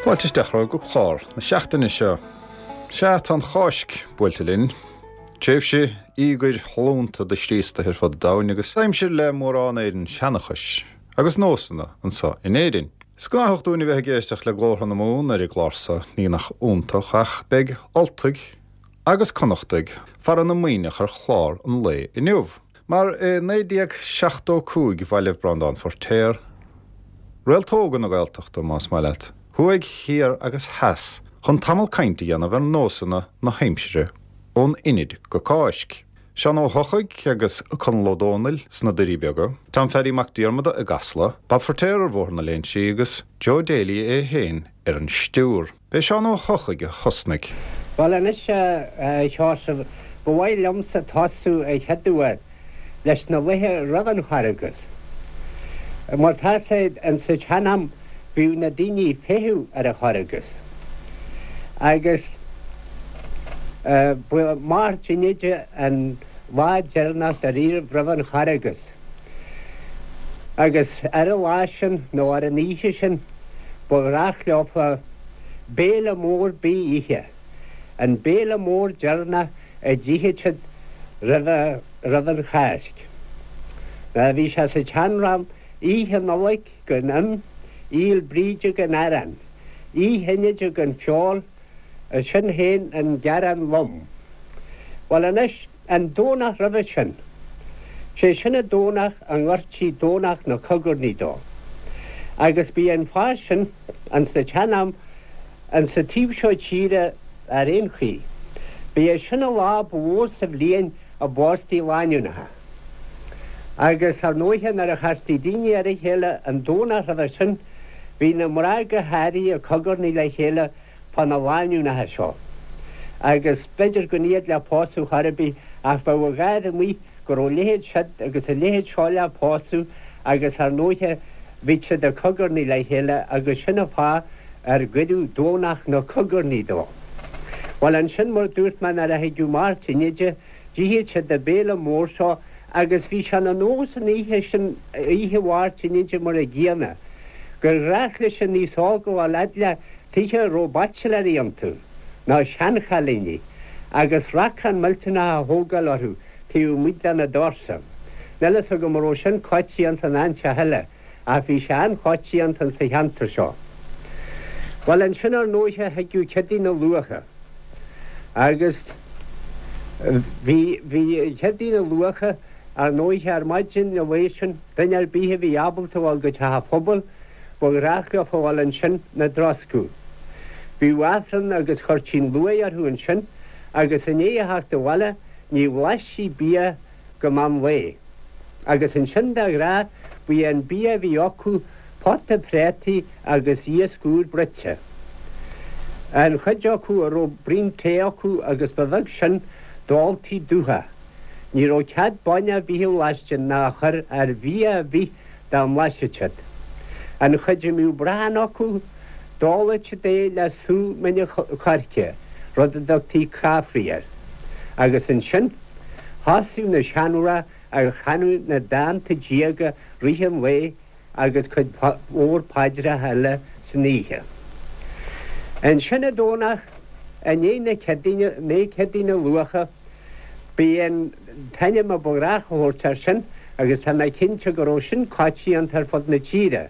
Fáilte isteach romhaibh go clár na seachtaine seo. Sea, tá an Cháisc buailte linn. Tréimhse íogair sholúnta do Chríostaithe ar fud an domhain agus aimsir le mórán éireann seanchais agus nósanna anso in Éirinn. Is gnáthach dúinn a bheith ag éisteacht le glórtha na Mumhan ar an gclár so, ní nach iontach, ach beidh Ultaigh agus Connachtaigh fara na Muimhneach ar chlár an lae inniu. Mar i 1975 bhailigh Breandán Feirtéar, réalta óga na Gaeltachta, más maith leat, thuaidh, thiar agus theas chun tamall cainte a dhéanamh ar nósanna na haimsire ón Inid go Cáisc. Seán Ó hEochaidh agus Conall Ó Dónaill sna Doirí Beaga, Tom Pheaidí Mac Diarmada i gCasla, Bob Feirtéar ar Bhóthar na Léinsí agus Joe Daly é féin ar an stiúr. B'é Seán Ó hEochaidh a thosnaigh. Bhuel anois, a Sheosaimh, ba mhaith liomsa tosú a chéaduair leis na laethe roimh an Charghas. Mar tá sé, insa tsean-am bhíodh na daoine ag feitheamh ar an Charghas. Agus ba Máirt Inide an lá deireanach dáiríribh roimh an Charghas. Agus ar an lá sin, nó ar an oíche sin, ba ghnách leofa béile mór bídh a ithe, an béile mór deireanach a d'itheadh siad roimh, roimh an Cháisc. Bhí sé sa tseanrá, Oíche Nollag gan im, Fhéil Bríde gan arán, Oíche Inide gan feoil, sin féin an gearán lom. Bhuel anois, An Domhnach roimhe sin, sé sin an Domhnach a ngoirtí Domhnach na Cogarnaí dó. Agus b'í an fáth sin, ins an tsean-am, ins an taobh seo tíre ar aon chaoi, b'é sin an lá ba mhó sa bhliain a bpóstaí lánúineacha. Agus ar ndóighe nuair a chastaí daoine ar a chéile an Domhnach roimhe sin, bhí na mná go háirithe ag cogarnaigh le chéile fá na lánúineacha seo. Agus b'fhéidir gan iad le pósadh chor ar bith ach bheadh a gháir amuigh go raibh a leithéid siod agus a leithéid seo le pósadh agus ar ndóighe bhíodh siad ag cogarnaigh le chéile agus sin an fáth ar cuireadh Domhnach na Cogarnaí dó. Bhuel ansin mar dúirt mé nuair a thigeadh Máirt Inide d'itheadh siad an béile mór seo agus bhí sé ina nós an oíche sin, oíche Mháirt Inide mar an gcéanna, gur ghnách leis an aos óg a ghabháil fhad le tithe a raibh baitsiléirí iontu, nó seanchailíní, agus racán millteanach a thógáil orthu taobh amuigh de na doirse. Níl fhios agam an raibh sin coitianta in áiteacha eile, ach bhí sé an-choitianta insa cheantar seo. Bhuel, ansin ar ndóighe thigeadh Céadaoin an Luaithe, agus bhí, bhí Céadaoin an Luaithe, ar ndóighe, ar maidin an lae sin, duine ar bith a bhí ábalta a ghabháil go teach an phobail, Ba ghnách leo a ghabháil ansin 'na dtroscadh. Bhíodh Aifreann agus chuirtí an luaith orthu ansin agus i ndiaidh a theacht abhaile ní bhlaistí bia go meán lae. Agus ansin de ghnáth ba é an bia a bhí acu pota préataí agus iasc úr bruite. An chuid acu a raibh braon tae acu agus ba bheag sin d'óltaí dubhach. Ní raibh cead bainne ar bith a bhlaisteadh ná a chur ar bhia ar bith dá mblaiseadh siad. An chuid a mbíodh brachán acu, d'óladh siad é le sú mine coirce, rud a dtugtaí caifrí air. Agus ansin, thosaíodh na seanmhná ag chanadh na dánta diaga rith an lae agus cuid mhór paidreacha eile san oíche. Ansin an Domhnach i ndiaidh na Céadaoine, i ndiaidh Céadaoin an Luaithe, B'é an t-ainm a ba ghnách a thabhairt air sin agus tá mé cinnte go raibh sin coitianta ar fud na tíre.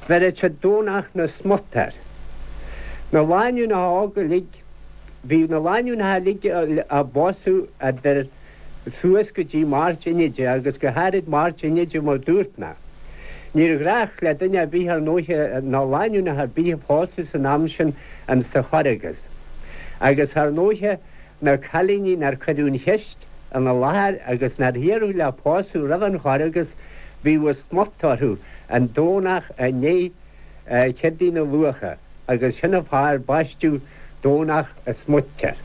Bheireadh siad Domhnach na Smut air. Na lánúineacha óga uilig, bhíodh na lánúineacha uilig á bpósadh idir suas go dtí Máirt Inide agus go háirid Máirt Inide mar dúirt mé. Níor ghnách le duine ar bith ar ndóighe ná lánúineacha ar bith a phósadh san am sin insa Chorragus. Agus ar ndóighe Na cailíní nár cuireadh an cheist ina láthair agus nár iarradh le pósadh roimh an Chorragus bhíodh an smut orthu an Domhnach i ndiaidh Chéadaoin an Luaithe agus sin an fáth ar baisteadh Domhnach an Smuit air.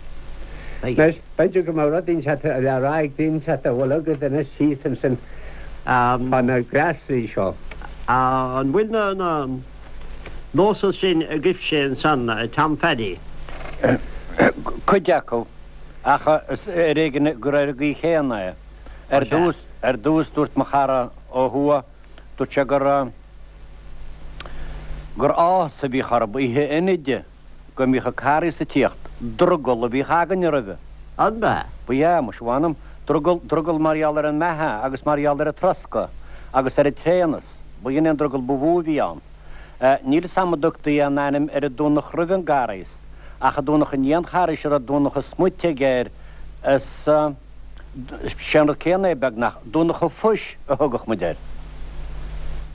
Anois, b'fhéidir go mbeadh rud inteacht le rá ag duine inteacht a bhfuil agat anois thíos ansin fá na gléasraí seo. An bhfuil na nósanna sin agaibhse ansan, a Tom Pheaidí? Cuid acu, ach is ar éigean gur ar an gcaoi chéanna é. Ar dtús, ar dtús dúirt mo chara ó thuaidh, dúirt sé gur. Gur áthas a bhíodh orthub oíche Inide go mbíodh an Carghas ag tíocht, drogall a bhíodh againne roimhe. An b'ea? Ba ea, muise mh'anam, drogall, drogall mar gheall ar an mbeatha agus mar gheall ar an troscadh agus ar an tréanas, ba shin é an drogall ba mhó a bhí ann. Níl 'fhios a'm an dtugtaí aon ainm ar an Domhnach roimh an gCarghas, ach an Domhnach i ndiaidh an Charghais a raibh Domhnach an Smuitigh air, is sé an rud céanna é beagnach, Domhnach an Phuis a thugadh muid air.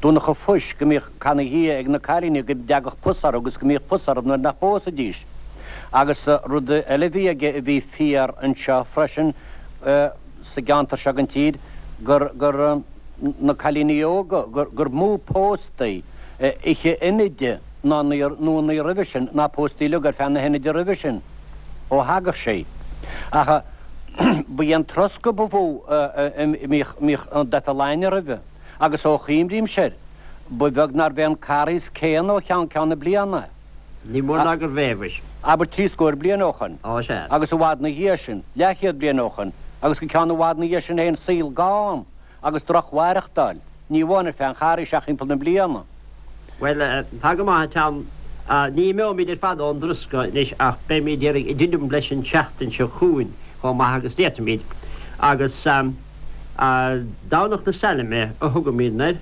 Domhnach an Phuis, go mbíodh canadh Dhia ag na cailíní go dtagadh pus orthu agus go mbíodh pus orthu nuair nach bpósaidís. Agus rud eile a bhí aige a bhí fíor anseo freisin sa gceantar seo den tír, gur, gur, na cailíní óga, gur, gur mó póstaí oíche Inide ná nó an oíche roimhe sin ná póstaí uilig ar feadh na hInide roimhe sin. ó thagadh sé. Ach ba é an troscadh ba mhó a mbíodh an doicheall againne roimhe, agus ó chuimrímse air, ba bheag nárbh é an Carghas céanna ó cheann ceann na bliana. Ní mór ná gurbh é, mhuis. Abair trí scór bliain ó shoin. Ó, sea. Agus i bhfad 'na dhiaidh sin, leathchéad bliain ó shoin, agus go ceann i bhfad 'na dhiaidh sin féin, saol gann. agus drochmhaireachtáil, ní amháin ar feadh an Charghais ach thimpeall na bliana. Bhuel, tá go maith, a Tom. Ní imeoimid ar fad ón dtroscadh anois ach beimid iarraidh i dtitim leis an tseachtain seo chugainn chomh maith agus d'fhéadfaimid. Agus Domhnach na Sailme a thugaimidne air.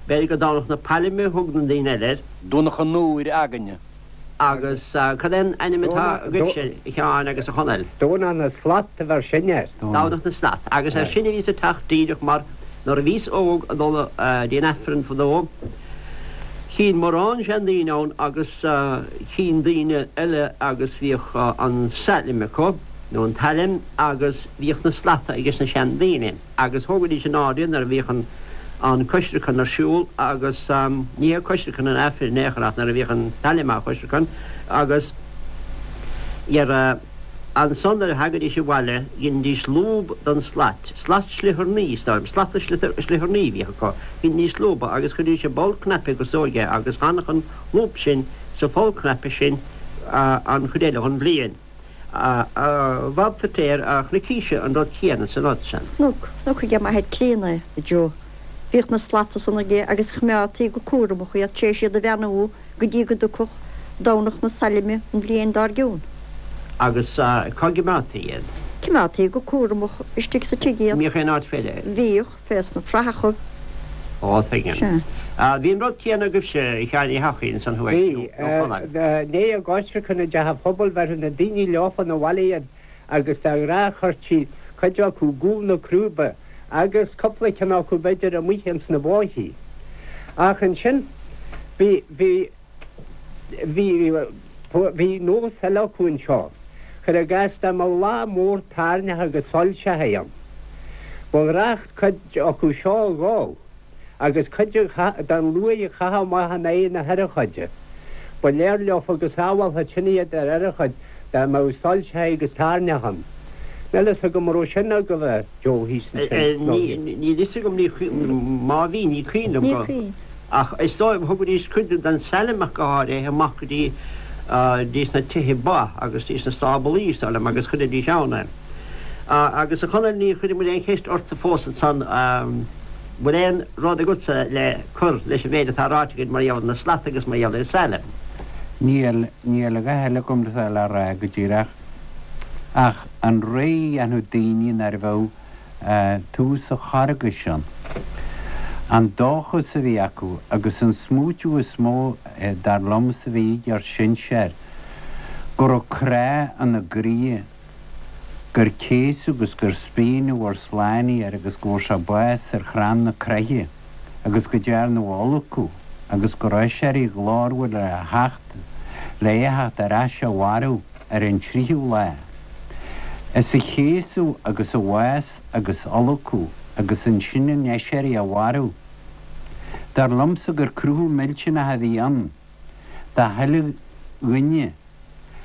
B'fhéidir gur Domhnach na Pailme a thug na daoine eile air. Domhnach an Iúir againne. Agus cad é an ainm atá agaibhse, a Sheáin agus a Chonaill? Domhnach na Slat a bheir sinne air. Domhnach na Slat. Agus ar sin a bhíos ag teacht díreach mar nuair a bhíos óg ag dul dtí an Aifreann fadó, chínn mórán seandaoine ann agus chínn daoine eile agus bhíodh an sailm acu, nó an tsailm, agus bhíodh na slata ages na seandaoine. Agus thógaidís in airde nuair a bhíodh an an coisreacan ar siúl agus ní hé coisreacan an Aifrinn in aon chor ach nuair a bhíodh an tsailm á choisreacan agus dhera ansan nuair a thagaidís abhaile dheinidís lúb don slait, slat sliothaireannaí is dóigh liom, slata sliothaireannaí a bhíodh acu, dheinidís lúba agus chuiridís i bpoll cnaipe go sóige agus d'fhanadh an lúb sin sa pholl cnaipe sin an chuid eile dhon bhliain. A Bhab Phíotair, a chnoicíse an rud céanna san rud san. Chonac, chonac aige m'athair críonna é, a Joe. Bhíodh na slata san aige agus choimeádtaí go cúramach iad tar éis iad a bheannú go dtí go dtiocfadh Domhnach na Sailme an bhliain dár gcionn. Agus cá gcimeádtaí iad? Cimeádtaí go cúramach istigh sa tigh iad. Mbíodh aon áit fé leith? Bhíodh. Fés na fraitheachaibh. Ó, tuigim. Sea. Bhí an rud céanna agaibhse, a Sheáin Uí hEochaidh, ansan thuaidh, Bhí. nó Conaill. I ndiaidh a gcoisreacan i dteach an phobail bheireadh na daoine leofa 'na bhaile iad agus de ghnáth chuirtí cuid acu i gcúl na crúibe agus cúpla ceann acu b'fhéidir amuigh ins na bóithí. Ach ansin bhí, bhí, bhí, bhí nós eile acu anseo. Cuir i gcás dá mbeadh lá mór tairneach agus soilseachaí ann, ba ghnách cuid acu seo a dhó agus cuid den luaith a chaitheamh amach in aghaidh na hurchóide. Ba léir leofa go sábhálfadh sin iad ar urchóid dá mbeadh soilseachaí agus tairneach ann. Níl fhios agam an raibh sin agaibh a Joe thíos ansin nó. Níl fhios agam, má bhí, ní cuimhin liom go. Ach is dóigh, thugaidís cuid den tsailm ach go háirithe amach go dtí dtí sna tithe ba agus dtí sna stáblaí, is dóigh liom, agus chuiridís ann é. Agus a Chonaill, níor chuir muid aon cheist ortsa fós ansan, bhfuil aon rud agatsa le cur leis an mhéid atá ráite againn mar gheall ar na slata agus mar gheall ar an tsailm? Níl, níl a dhath eile agam le rá go díreach ach an rogha a dhéanfadh daoine nuair a bheadh tús an Charghais ann. An dóchas a bhí acu agus an smaoitiú is mó, dar liomsa, a bhí ag ár sinsear, go raibh crá ina gcroíthe, gur céasadh agus gur spíonadh ár Slánaí air agus go bhfuair sé bás ar chrann na croiche agus go dtearnadh a fholcadh agus go raibh aiséirí ghlórmhar le theacht, le é a theacht ar ais a mhairbh. ar an tríú lá. Is a chéasadh agus a bhás agus fholcadh agus ansin an aiséirí a mhairbh. Dar liomsa gur cruthú millteanach a bhí ann do chuile dhuine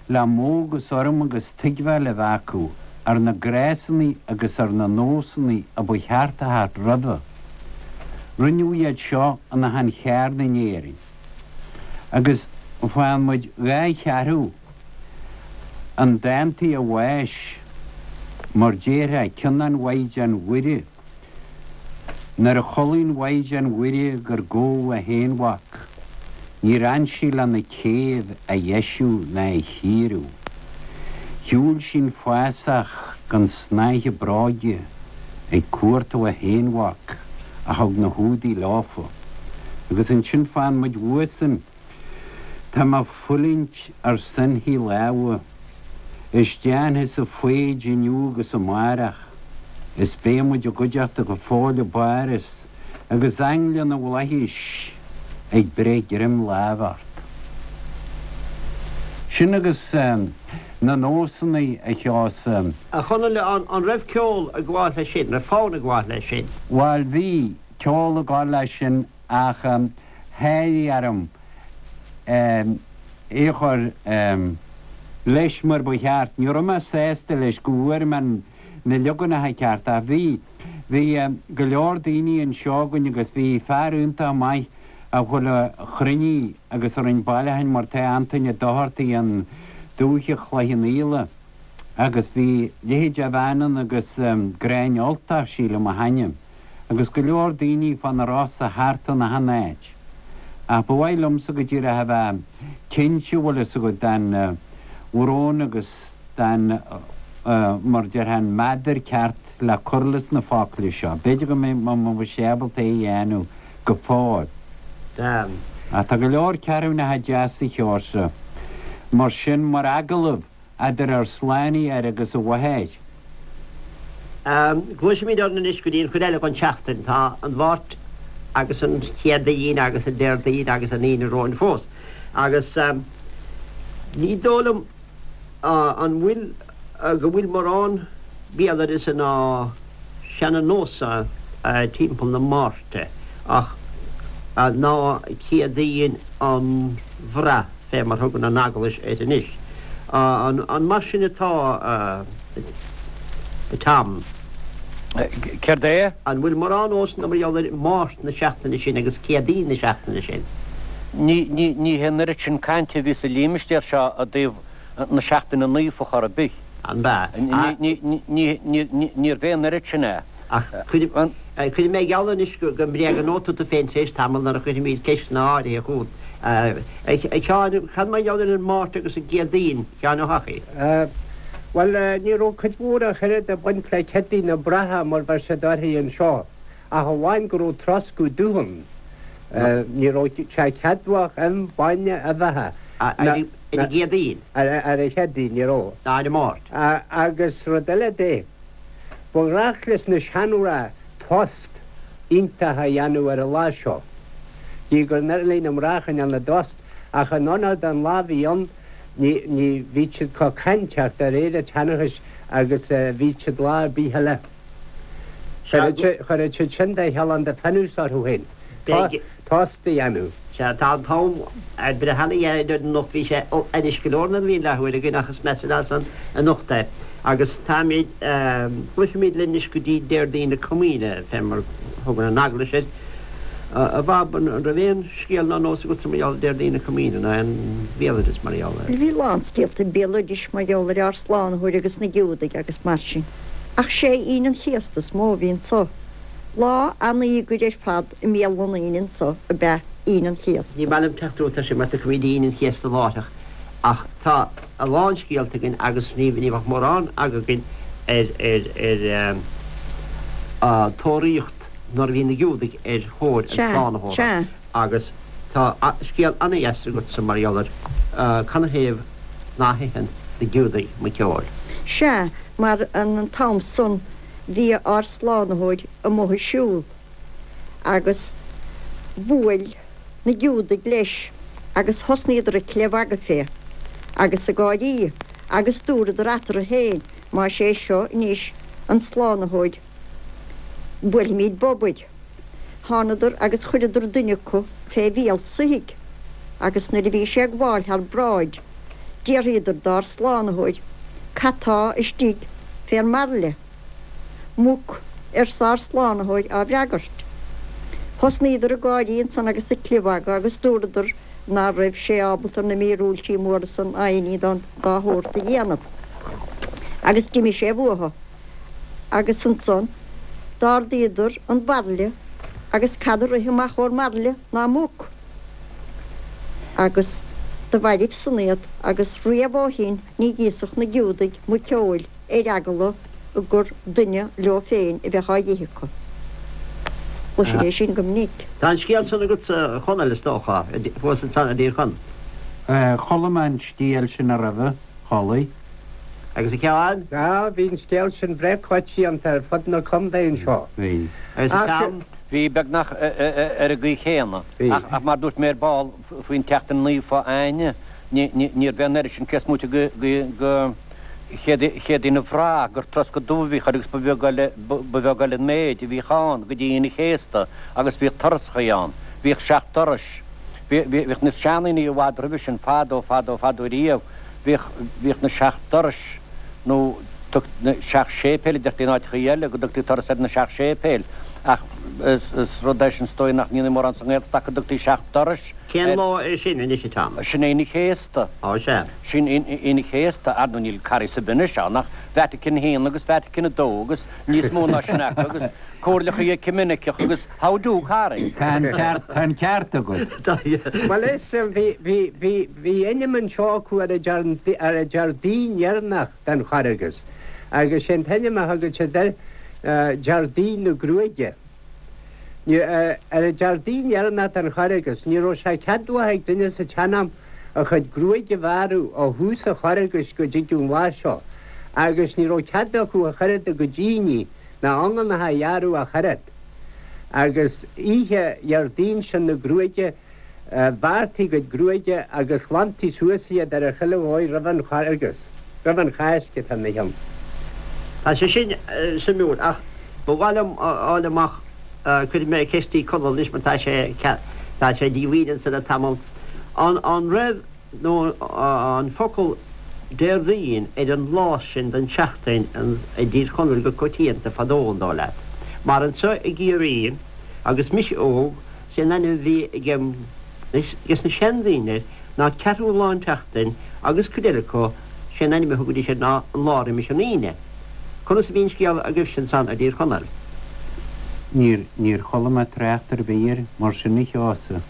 le modh agus urraim agus tuigbheáil a bheith acu ar na gnásanna agus ar na nósanna a ba cheart a theacht roimhe. Rinneadh iad seo in achan cheard in Éirinn. Agus faigheann muid dhá cheathrú an dántaí a bháis, mar déarfá, ceann an Mhaighdean Mhuire, nuair a chodlaigh an Mhaighdean Mhuire gur gabhadh a haonmhac. Níor fhan sí lena céibh a dheisiú ná a chíoradh. Shiúil sí'n fásach gan snáithe bróige ag cuartú a haonmhac a thug na hIúdaigh leofa. Agus ansin faigheann muid uaidhsean, Tá mé fulaingt ar sointhí lámha, is déanfadsa foighid inniu agus amárach, is beidh muid i gcuideachta go fóill i bPáras, agus aingle na bhflaithis ag breith greim láimhe ort. Sin agus na nósanna a Sheosaimh. A Chonaill, an raibh ceol ag gabháil leis sin, raibh fonn ag gabháil leis sin? Bhail bhí ceol ag gabháil leis sin ach sháraigh orm é a chur leis mar ba cheart. Ní raibh mé sásta leis go bhfuair mé na leaganacha cearta ach bhí. Bhí go leor daoine anseo againn agus bhí fear iontach maith a chuile chruinnigh agus a rinn bailiúcháin mar tá Antaine Ó Dochartaigh i ndúiche Chloich Cheann Fhaola agus bhí leithéid de bhean ann agus Gráinne Ultach sílim a hainm agus go leor daoine fá na Rosa thart in achan áit. Ach ba mhaith liomsa go díreach a bheith cinnte bhfuil fhios agat den bhrón agus den mar déarfá an meadar ceart le cur leis na focla seo. B'fhéidir go mbeidh sé ábalta é a dhéanamh go fóill. Ach tá go leor ceathrúnacha deasa Sheosaimh mar sin mar agallamh idir ár Slánaitheoir agus a Mháthair. Gluaisimid orainn anois go dtí an chuid eile den tseachtain. Tá an Mháirt agus an Chéadaoin agus an Déardaoin agus an Aoine romhainn fós. Agus ní dóigh liom an bhfuil, go bhfuil mórán béaloideasa ná seana-nósa timpeall na Máirte ach ná Céadaoin an Bhraith fé mar thugann an Eaglais air anois. An mar sin atá, a Tom? Céard é? An bhfuil mórán nósanna mar gheall ar Máirt na seachtaine sin agus Céadaoin na seachtaine sin? Ní, ní, ní hé an oiread sin cainte a bhí sa límistéar seo i dtaobh na seachtaine naofa chor ar bith. An b'ea? Ní, ní, ní, ní, ní, níorbh é an oiread sin é. Ach cuirfidh, cuirfidh mé geall anois go, go mbréagnóidh tú tú féin tar éis tamaill nuair a chuirfimid ceisteanna áirithe chugat. A, a Sheáin, cad mar gheall ar an Máirt agus an gCéadaoin? Sheáin Ó hEochaidh. Bhuel, ní raibh cuid mhór ach oiread ag baint le Céadaoin na Braiche mar bheir siad uirthi anseo, ach amháin go raibh troscadh dubh ann. Ní raibh sé ceadmhach im, bainne, uibheacha. Ar an gCéadaoin? Ar an Chéadaoin, ní raibh. Ná ar an Máirt. Agus rud eile de, ba ghnách leis na seanmhná tost iontach a dhéanamh ar an lá seo. Gidh gur doiligh na mná a choinneáil 'na dtost, ach in onóir don lá a bhí ann, Ní, ní, bhíodh siad chomh cainteach de réir an tseanchais agus a bhíodh siad lá ar bith eile. Chuireadh siad sin de shealán de phionós orthu féin, tost a dhéanamh. Sea, tá an t-am ag breith ana-ghéar anocht. Bhí sé ainnis go leor nuair a bhí an leathuair againn ach is measa leat-san anocht é. Agus táimid, gluaisimid linn anois go dtí Déardaoin na Comaoine, fé mar thugann an Eaglais air. A Bhab, an raibh aon. Scéal ná nós agatsa mar gheall ar Déardaoin na Comaoine, ná aon bhéaloideas mar gheall air? Bhí a lán scéalta béaloidis mar gheall ar ár Slánaitheoir agus na Giúdaigh agus mar sin. Ach sé Aoine an Chéasta is mó a bhí anso. Lá an-íogair ar fad i mbéal na ndaoine anso ab ea Aoine an Chéasta. Ní maith liom teacht romhat ar sin mar tiocfaimid Aoine an Chéasta láithreach ach tá a lán scéalta againn agus ní bheadh mórán againn ar ar ar tóraíocht nuair a bhí na Giúdaigh ar thóir an tSlánaitheora agus tá scéal ana-dheas agatsa mar gheall ar canathaobh ná hitheann na Giúdaigh muiceoil. Sea, mar an t-am san bhí ár Slánaitheoir amuigh ag siúl agus bhuail na Giúdaigh leis agus thosnaíodar ag clibh-mhagadh fé agus ag gáirí agus dúradar eatarthu féin, Más é seo anois an Slánaitheoir, Buailfimid bob air. Thánadar agus chuireadar duine acu fé bhéal soithigh, agus nuair a bhí sé ag gabháil thar bráid, d'fhiafraíodar dár Slánaitheoir, Cad tá istigh fé'r mbairille? Muc, arsa ár Slánaitheoir á bhfreagairt. Thosnaíodar ag gáirí ansan agus ag clibh-mhagadh agus dúradar ná raibh sé ábalta na míorúiltí móra san ná aon ní dá shórt a dhéanamh. Agus d'imigh sé uathu. Agus ansan d'ardaíodar an bairille agus cad a rith amach ó'r mbairille ná muc. Agus do mhairbh san iad, agus riamh ó shin ní dh'íosfadh na Giúdaigh muiceoil ar eagla gur duine leo féin a bheadh á dh'ithe acu. Chloisinn é sin go minic. Tá an scéal san agatsa, a Chonaill, is dócha, thuas ansan i dTír Chonaill. Chuala mé an scéal sin roimhe, chualaidh. Agus a Sheáin? Á, bhí an scéal sin breá coitianta ar fud na contae anseo. Bhí. Agus a Sheáin? Bhí, beagnach ar an gcaoi chéanna. Ach mar dúirt mé ar ball faoin tseachtain naofa Aoine, níorbh é an oiread sin cé is móite de Chéadaoin an Bhraich gur troscadh dubh a bhíodh air agus ba bheag eile ba bheag eile an méid a bhíodh ann go dtí Aoine an Chéasta agus bhíodh turasachaí ann. Bhíodh seacht dturais. Bhíodh na seandaoine i bhfad roimhe sin fadó fadó fadó riamh. Bhíodh bhíodh na seacht dturais nó tug na seacht séipéil a deirtí in áiteachaí eile go dtugtaí turas ar na seacht séipéil ach is rud é sin is dóigh nach ndéanfaí mórán sa nGaeltacht ach go dtugtaí seacht dturais Cén lá é sin anois a Tom? Sin Aoine Chéasta. Á sea. Sin Aoine Chéasta. Ar ndóigh níl Carghas ar bith anois ann ach Vatican a haon agus Vatican a dó agus níos mó ná sin acu agus comhairleacha ecuiminiceach agus how do Carghas? Tá an ceart, tá an ceart agat. Bhuel is, bhí, bhí, bhí, bhí ainm anseo acu ar an Dear, ar an Déardaoin dheireanach den Charghas agus sé an t-ainm a thugadh siad air, Déardaoin na Gruaige. Ar an Déardaoin dheireanach den Charghas, ní raibh sé ceadmhach ag duine sa tsean-am a chuid gruaige a bhearradh ó thús an Charghais go dtí an lá seo, agus ní raibh cead acu ach oiread a gcuid íní ná iongánacha a ghearradh ach oiread. Agus oíche Dhéardaoin sin na gruaige, Bhearrtaí a gcuid gruaige agus ghlantaí suas iad ar chuile dhóigh roimh an Charghas, roimh an Cháisc atá ina chionn. Tá sé sin suimiúil, ach ba mhaith liom a fháil amach, cuirfidh mé ceist chuig Conall anois mar tá sé, tá sé díomhaoin anso le tamall, an, an raibh nó an focal Déardaoin ar an lá sin den tseachtain i dTír Chonaill go coitianta fadó, an dóigh leat? Mar anso i gCiarraí, agus mise óg, Sé an ainm a bhí ag ages na seandaoine air ná ceathrú lá an tseachtain agus cuid eile acu sé an ainm a thugaidís air ná an lá roimis an Aoine. Conas a bhí an scéal agaibhse ansan i dTír Chonaill? Níor, níor chuala mé trácht ar bith air mar sin a Sheosaimh.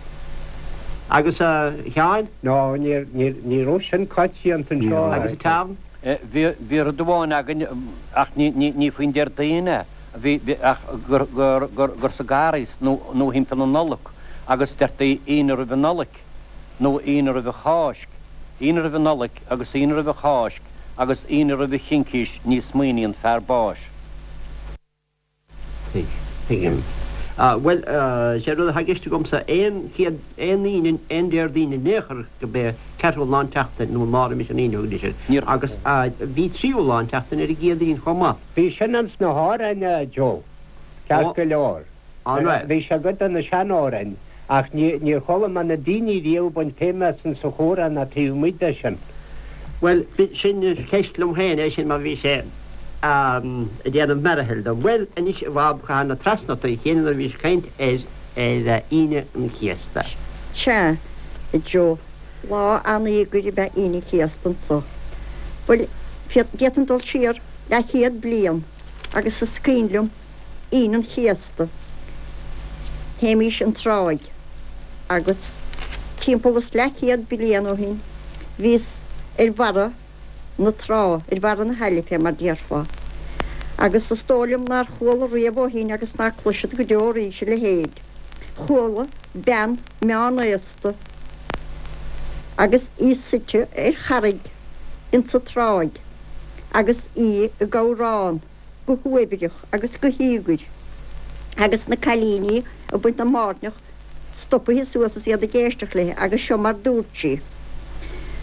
Agus a Sheáin? No, níor, níor, ní raibh sin coitianta anseo. Agus a Tom? Bhí, bhí rud amháin againn ach ní, ní, ní faoin Déardaoin é. Bhí, ach gur, gur, gur, gur sa gCarghas nó, nó thimpeall na Nollag agus deirtí Aoine roimh an Nollaig nó Aoine roimh an Cháisc, Aoine roimh an Nollaig agus Aoine roimh an Cháisc agus Aoine roimh an Chincís ní smaoiníonn fear báis. Tuig, tuigim. Bhuel, sé rud atá i gceist agamsa, aon chéad, aon Aoine, aon Déardaoin in aon chor go b'é ceathrú lá an tseachtain nó an lá roimis an Aoine a thugaidís air. Níor. Agus bhí tríú lá an tseachtain ar an gCéadaoin chomh maith. Bhí sin ins na hamhráin, a Joe, ceart go leor. Bhí sé i gcuid de na sean-amhráin, ach níor chuala mé na daoine riamh ag baint feidhme as insa chomhrá ná taobh amuigh de sin. Bhuel, sin ceist liom féin é sin mar bhí sé ag déanamh mearathaill dom. Bhuel, anois a Bhab, cathain na trasna ort a chéile nuair a bhís ag caint ar Aoine an Chéasta. Sea, a Joe, lá an-íogair ab ea Aoine an Chéasta anso. Bhuel, d'fhéadfainn dul siar leathchéad bliain agus is cuimhin liom Aoine an Chéasta, théimís an tráigh agus timpeall is leathchéad bliain ó shin bhíos ar bharra na trá, ar bharra na haille fé mar déarfá, agus is dóigh liom nár chuala riamh ó shin agus ná cloisfead go deo arís a leithéid. Chuala bean meánaosta agus í suite ar charraig insa tráigh. agus í ag amhrán go huaibhreach agus go híogair, agus na cailíní ag baint na mbairneach stopaithe suas is iad ag éisteacht léi, agus seo mar dúirt sí,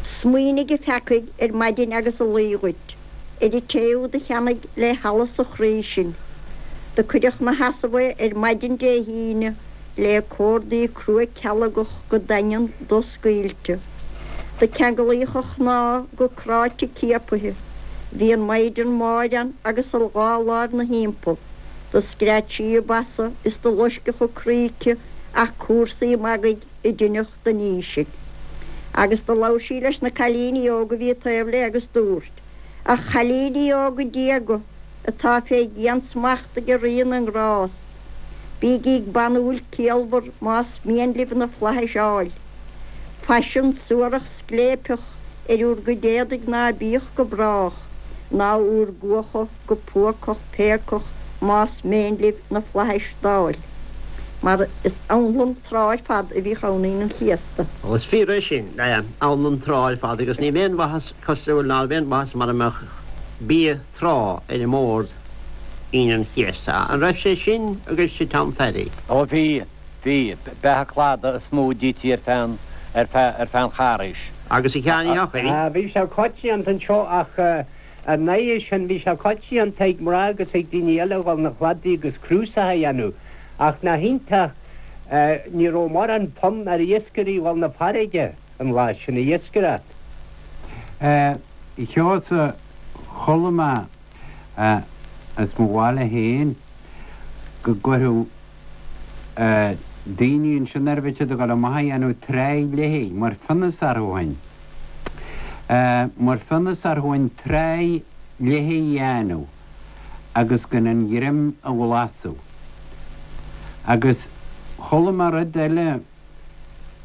Smaoinigh a pheacaigh ar maidin agus a luí dhuit, ar an té úd a cheannaigh le hallas a chroí sinn. Do cuireadh 'na sheasamh é ar maidin Dé hAoine, le córdaí crua cealgach go daingean doscaoilte. Do ceanglaíodh a chnámha go cráite ciapaithe. Bhí an Maighdean Mháire ann agus a dhá láimh 'na thimpeall. Do scread sí a basa is do loisceadh a croí aici ach cúrsaí magaidh a deineadh den ní sin. Agus do labhair sí leis na cailíní óga a bhí taobh léi agus dúirt, A chailíní óga diaga atá fé dhiansmacht ag Rí na nGrást, Bígí banúil ciallmhar más mian libh na flaithis a fháil. Faisean suarach scléipeach ar úr gcuid éadaigh ná bíodh go brách, ná úr gcuacha go púacach péacach más méin libh na flaithis d'fháil. Mar is anlann trá ar fad a bhíodh ann Aoine an Chéasta. Ó, is fíor é sin, anlann trá ar fad agus ní aon mhaitheas cosúil ná aon mhaitheas mara mbeadh bia trá ar an mbord Aoine an Chéasta. An raibh sé sin agaibhse Tom Phaddy? Ó bhí. Bhí. Beatha cladaigh is mó a d'ití ar feadh an, ar feadh, ar feadh an Charghais. Agus a Sheáin Uí Eochaidh? Bhí sé coitianta anseo ach ar ndóigh sin bhí sé coitianta ag mná agus ag daoine eile a dhul 'na chladaigh agus crúsach a dhéanamh ach nach iontach ní raibh mórán fonn ar iascairí dhul 'na farraige an lá sin a iascaireacht. A Sheosaimh, chuala mé as mo bhaile féin go gcuirfeadh daoine ansin nuair a bhí siad ag dul amach a dhéanamh tráigh léi, mar phionós orthu ó shin. Mar phionós orthu an tráigh léi a dhéanamh agus gan an ghreim a bhlasadh. Agus chuala mé rud eile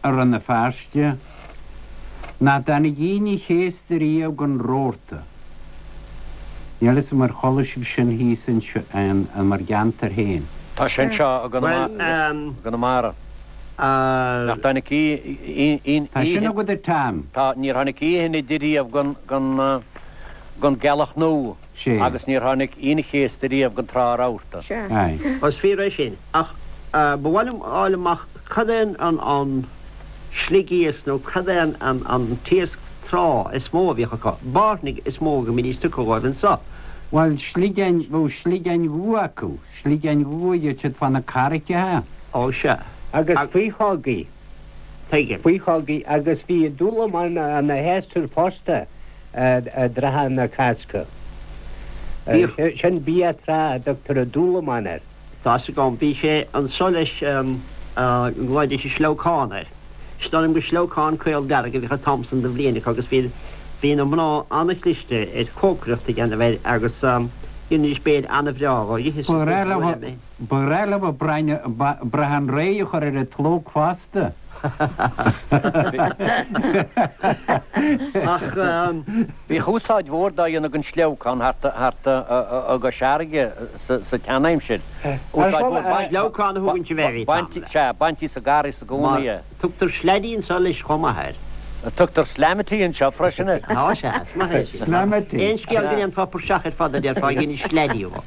i Rann na Feirste, nach dtáinig Aoine Chéasta riamh gan rabharta. Níl a fhios agam ar chuala sibh sin thíos in bhur gceantar féin. Tá sé anseo i gConamara. Nach dtáinig aon Tá sin agat a Tom. Tá, níor tháinig oíche Inide riamh gan gealach nua agus níor tháinig Aoine Chéasta riamh gan trá rabharta. Sea. Is fíor é sin. Ach ba mhaith liom a fháil amach cad é an sligiasc nó cad é an t-iasc trá is mó a bhíodh acu. Bairnigh is mó go mbídís tugtha dhóibh anso. Bhuel, sligeáin, bheadh sligeáin dhubha acu, sligeáin dhubha a gheibheadh siad fá na carraigeacha. Ó, sea. Agus faochógaí. Tuigim. Faochógaí agus bhí dúlamán ina shéasúr fosta i dtrátha na Cásca. Sin bia trá a dtugtar an dúlamán air. Tá 'fhios agam. Bhí sé anso leis go nglaoidís an sleabhcán air. Is dóigh liom gur sleabhcán caol dearg a bhíodh an t-am san de bhliain acu agus bhí bhí na mná an-chliste ar chócaireacht a dhéanamh air agus dheinidís béile an-bhreá dhó. Dh'itheas Ba ghnách leo ba ghnách leo brachán réidh a chur ar an tslóc fosta. Ach bhíodh úsáid mhór dá dhéanamh den sleabhcán thart i gCois Fharraige sa tseanaimsir. Úsáid mhór. Sleabhcán a thugann sibh air, Tom. Sea, baintí sa gcarraig i gcónaí é. Tugtar sleaidí anseo leis chomh maith air. Tugtar slamity anseo freisin air. Á sea, is maith é sin. Slamity. Aon scéal go ndéanfá praiseach ar fad a déarfá, dhein sleaidí dhó.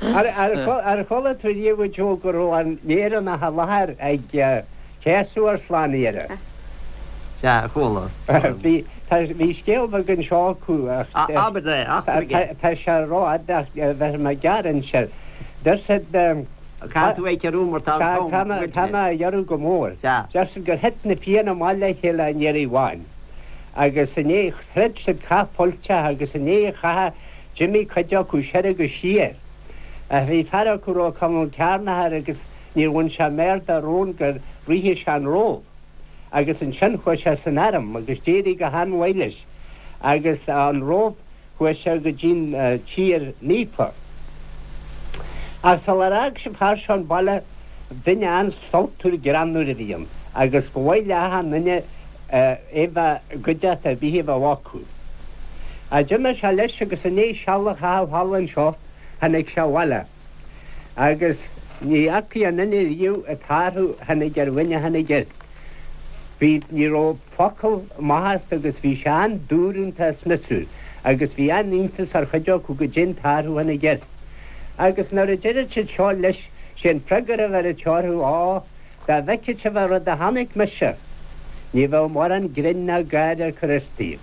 Ar chuala tú riamh a Joe go raibh an Éireannach i láthair ag céasadh ár Slánaitheora? Sea, chuala. Bhí, tá, bhí scéal beag anseo acu ach. Abair é, eachtraigh é. Tá sé rófhada ach bheir mé gearr anseo. Deir siad. Caithfidh tú é a chiorrú mar tá an t-am goidte. Tá mé á ghiorrú go mór. Sea. Deir siad gur thit na Fianna amach le chéile an iarraidh amháin agus i ndiaidh, throid siad cath fuilteach agus i ndiaidh an chatha d'imigh cuid acu soir agus siar. Ach bhí fear acu a raibh Conall Cearnach air agus níor bhain sé méar dá rón gur ritheadh sé an Róimh. Agus ansin chuaigh sé san arm agus d'éirigh go han-mhaith leis agus an Róimh chuaigh sé go dtí'n Tír Naofa. Ach sular fhág an fear seo an baile duine an-sultmhar greannmhar a bhí ann agus ba mhaith le achan nduine é bheith i gcuideachta ar bith a bheadh acu. Ach d'imigh sé leis agus i ndiaidh seal a chaitheamh thall anseo tháinig sé abhaile agus ní fhacaidh aon duine riamh an t-athrú a tháinig ar dhuine a tháinig air. Bhí, ní raibh focal amach as agus bhí sé an-dúrúnta is miosúil agus bhí an-iontas ar chuid acu goidé an t-athrú a tháinig air. Agus nuair a deireadh siad seo leis, sé an freagra a bheireadh sé orthu, Á, dá bhfeicfeadh sibh an rud a chonaic mise, ní bheadh mórán grinn ná gáire ar chur as daoibh.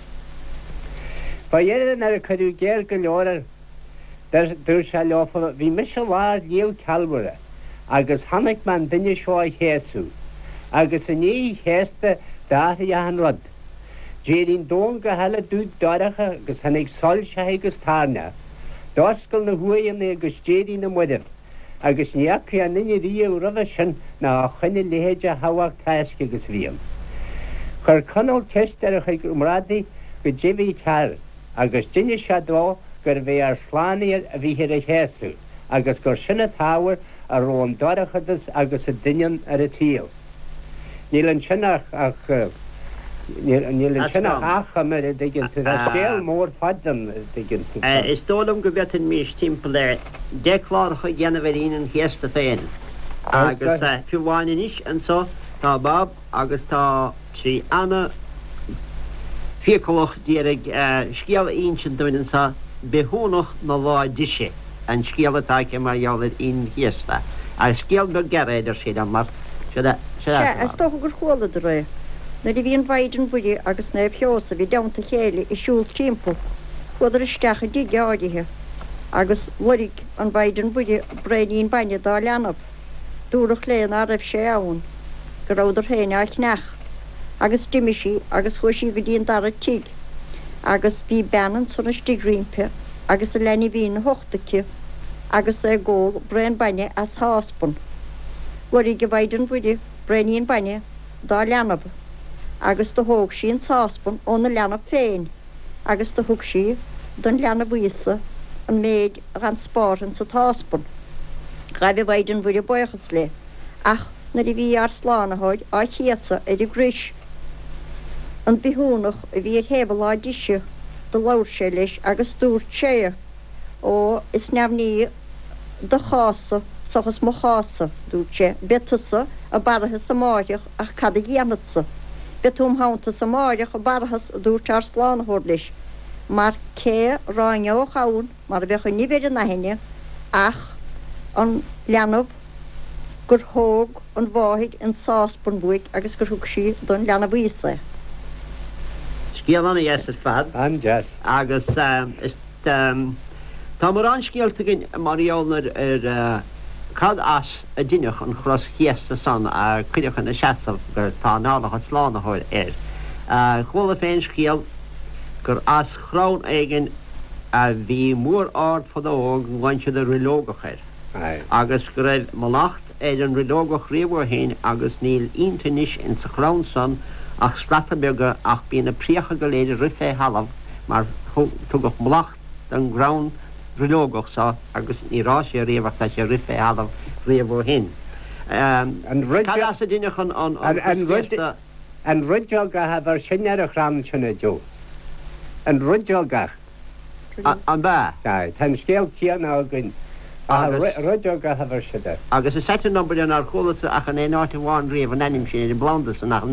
Fá dheireadh nuair a cuireadh géar go leor air, Dúirt sé leofa, Bhí mise i lár Shliabh Calvaire agus chonaic mé an duine seo á chéasadh, agus i ndiaidh a chéasta d'athraigh achan rud. D'éirigh an domhan go huile dubh dorcha agus tháinig soilseacha agus toirneach. D'oscail na huaigheanna agus d'éirigh na mairbh, agus ní fhacaidh aon duine riamh roimhe sin ná ó shoin a leithéid de thábhacht tásc agus a bhí ann. Chuir Conall ceist ar a chuid comrádaithe goidé bhí cearr. Agus d'inis sé dó gurbh é ár Slánaitheoir a bhíthear a chéasadh, agus gur sin an t-ábhar a raibh an dorchadas agus an doineann ar an tsaol. Níl ansin ach. Níl ansin ach achoimre, a dtuigeann tú. Tá scéal mór fada ann, a dtuigeann tú. Is dóigh liom go bhféadfaimis timpeall ar dheich cláracha a dhéanamh ar Aoine an Chéasta féin. Agus fiú amháin anois anso tá Bob agus tá sí ana fiacalach d'iarraidh scéal a insint dúinn anso, Bithiúnach na Lá Deise an scéal atá aici mar gheall ar Aoine an Chéasta. Agus scéal beag gearr é, a deir sí liom, mar seo é. Sea, is dócha gur chualadar é. Nuair a bhí an Mhaighdean Mhuire agus Naomh Sheosamh i dteannta a chéile ag siúl timpeall, chuadar isteach i dtigh áirithe, agus loirg an Mhaighdean Mhuire braoinín bainne dá leanbh. Dúradh léi ná raibh sé ann, go rabhadar féin á cheannach, agus d'imigh sí agus chuaigh sí go dtí an dara tigh, agus bhí bean ansan istigh roimpi agus a leanbhín 'na hucht aici agus é ag ól braon bainne as sháspan. Loirg an Mhaighdean Mhuire braoinín bainne dá leanbh, agus do thóg sí an sáspan óna leanbh féin agus do thug sí don leanbh Íosa an méid a dh'fhan spártha insa tsáspan. Ghaibh an Mhaighdean Mhuire baochas léi, ach nuair a bhí ár Slánaitheoir á chéasadh ar an gcrois, an bithiúnach a bhí ar thaobh a láimh deise, do labhair sé leis agus dúirt sé, Ó, is neamhní do chás-sa seachas mo chás-sa, dúirt sé, beidh tusa i bParthas amáireach ach cad a dhéanfadsa? Beidh tú im theannta-sa amáireach i bParthas, a dúirt ár Slánaitheoir leis, mar cé ráineodh ann mar a bheadh an nimh ar an aithne ach an leanbh gur thóg an mháthair an sáspan uaidh agus gur thug sí don leanbh Íosa é. Scéal an-dheas ar fad. An-deas. Agus is tá mórán scéalta againn mar gheall ar cad as a deineadh an chros chéasta san a cuireadh ina seasamh gur tá análacha Slánaitheoir air. Chuala féin scéal gur as chrann éigin a bhí mór ard fadó go nglaonn siad an roilleogach air agus go raibh mallacht ar an roilleogach riamh ó shin agus níl ionta anois ins an chrann san ach slata beaga ach bíonn na préacha go léir ag rith fé thalamh mar tugadh mallacht don gcrann roilleogach so agus níor fhás sé riamh ach tá sé ag rith fé thalamh riamh ó shin. Cad as a deineadh an chros chéasta? An roideogach a bheir sin ar an chrann sin, a Joe. An roideogach. An ea? Sea, tá an scéal céanna againn, ach an roideogach a bheir siad air. Agus is ait an obair é nár chualas-sa ach in aon áit amháin riamh an ainm sin ar an bplanda san ach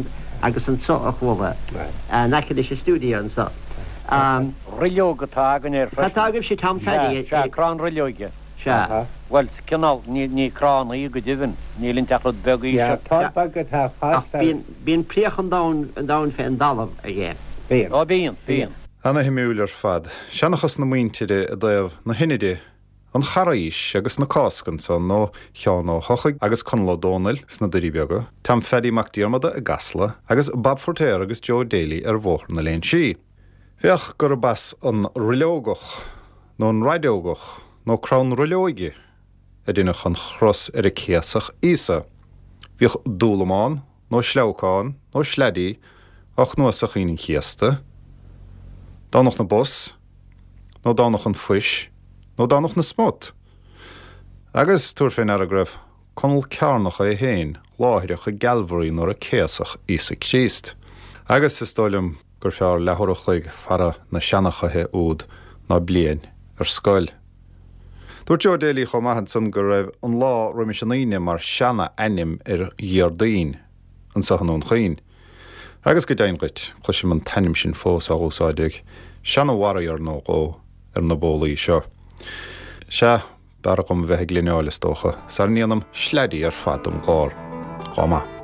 agus anso a chuala, in aice leis an stiúideo anso. Roilleog atá againn air freisin. Cad tá agaibhse, Tom Phaddy? Sea, sea, crann roilleoige. Sea. Bhuel, cineál, ní crann í go deimhin, níl inti ach rud beag íseal. Sea, tor beag atá ag fás Ach bíonn, bíonn préach an domhain, an domhain fén dtalamh aige. Bíonn. Ó bíonn, bíonn. Ana-shuimiúil ar fad. Seanchas na muintire i dtaobh na hInide, an Charghais agus na Cásca ansan ó Sheán Ó hEochaidh agus Conall Ó Dónaill sna Doirí Beaga, Tom Phaddy Mac Diarmada i gCasla agus Bob Feiritéar agus Joe Daly ar Bhóthar na Léinsí. Féach gurb as an roilleogach nó an raideogach nó crann roilleoige a deineadh an chros ar a céasadh Íosa. Bhíodh dúlamán nó sleabhcán nó sleaidí á chnuasach Aoine an Chéasta, Domhnach na bPus nó Domhnach an Phuis nó Domhnach na Smut. Agus tabhair fé ndeara go raibh Conall Cearnach é féin láithreach i gCalvary nuair a céasadh Íosa Críost. Agus is dóigh liom gur fearr leathuair a chloig fara na seanchaithe úd ná bliain ar scoil. Dúirt Joe Daly chomh maith ansan go raibh an lá roimis an Aoine mar seana-ainm ar Dhéardaoin anso i nDún Chaoin. Agus go deimhin dhuit, cloisim an t-ainm sin fós á úsáid ag seana-warrior nó dhó ar na bólaí seo. Sea, b'fhearr dhom a bheith ag líneáil is dócha, sara ndéanaim sleaidí ar fad den gclár. Lá maith.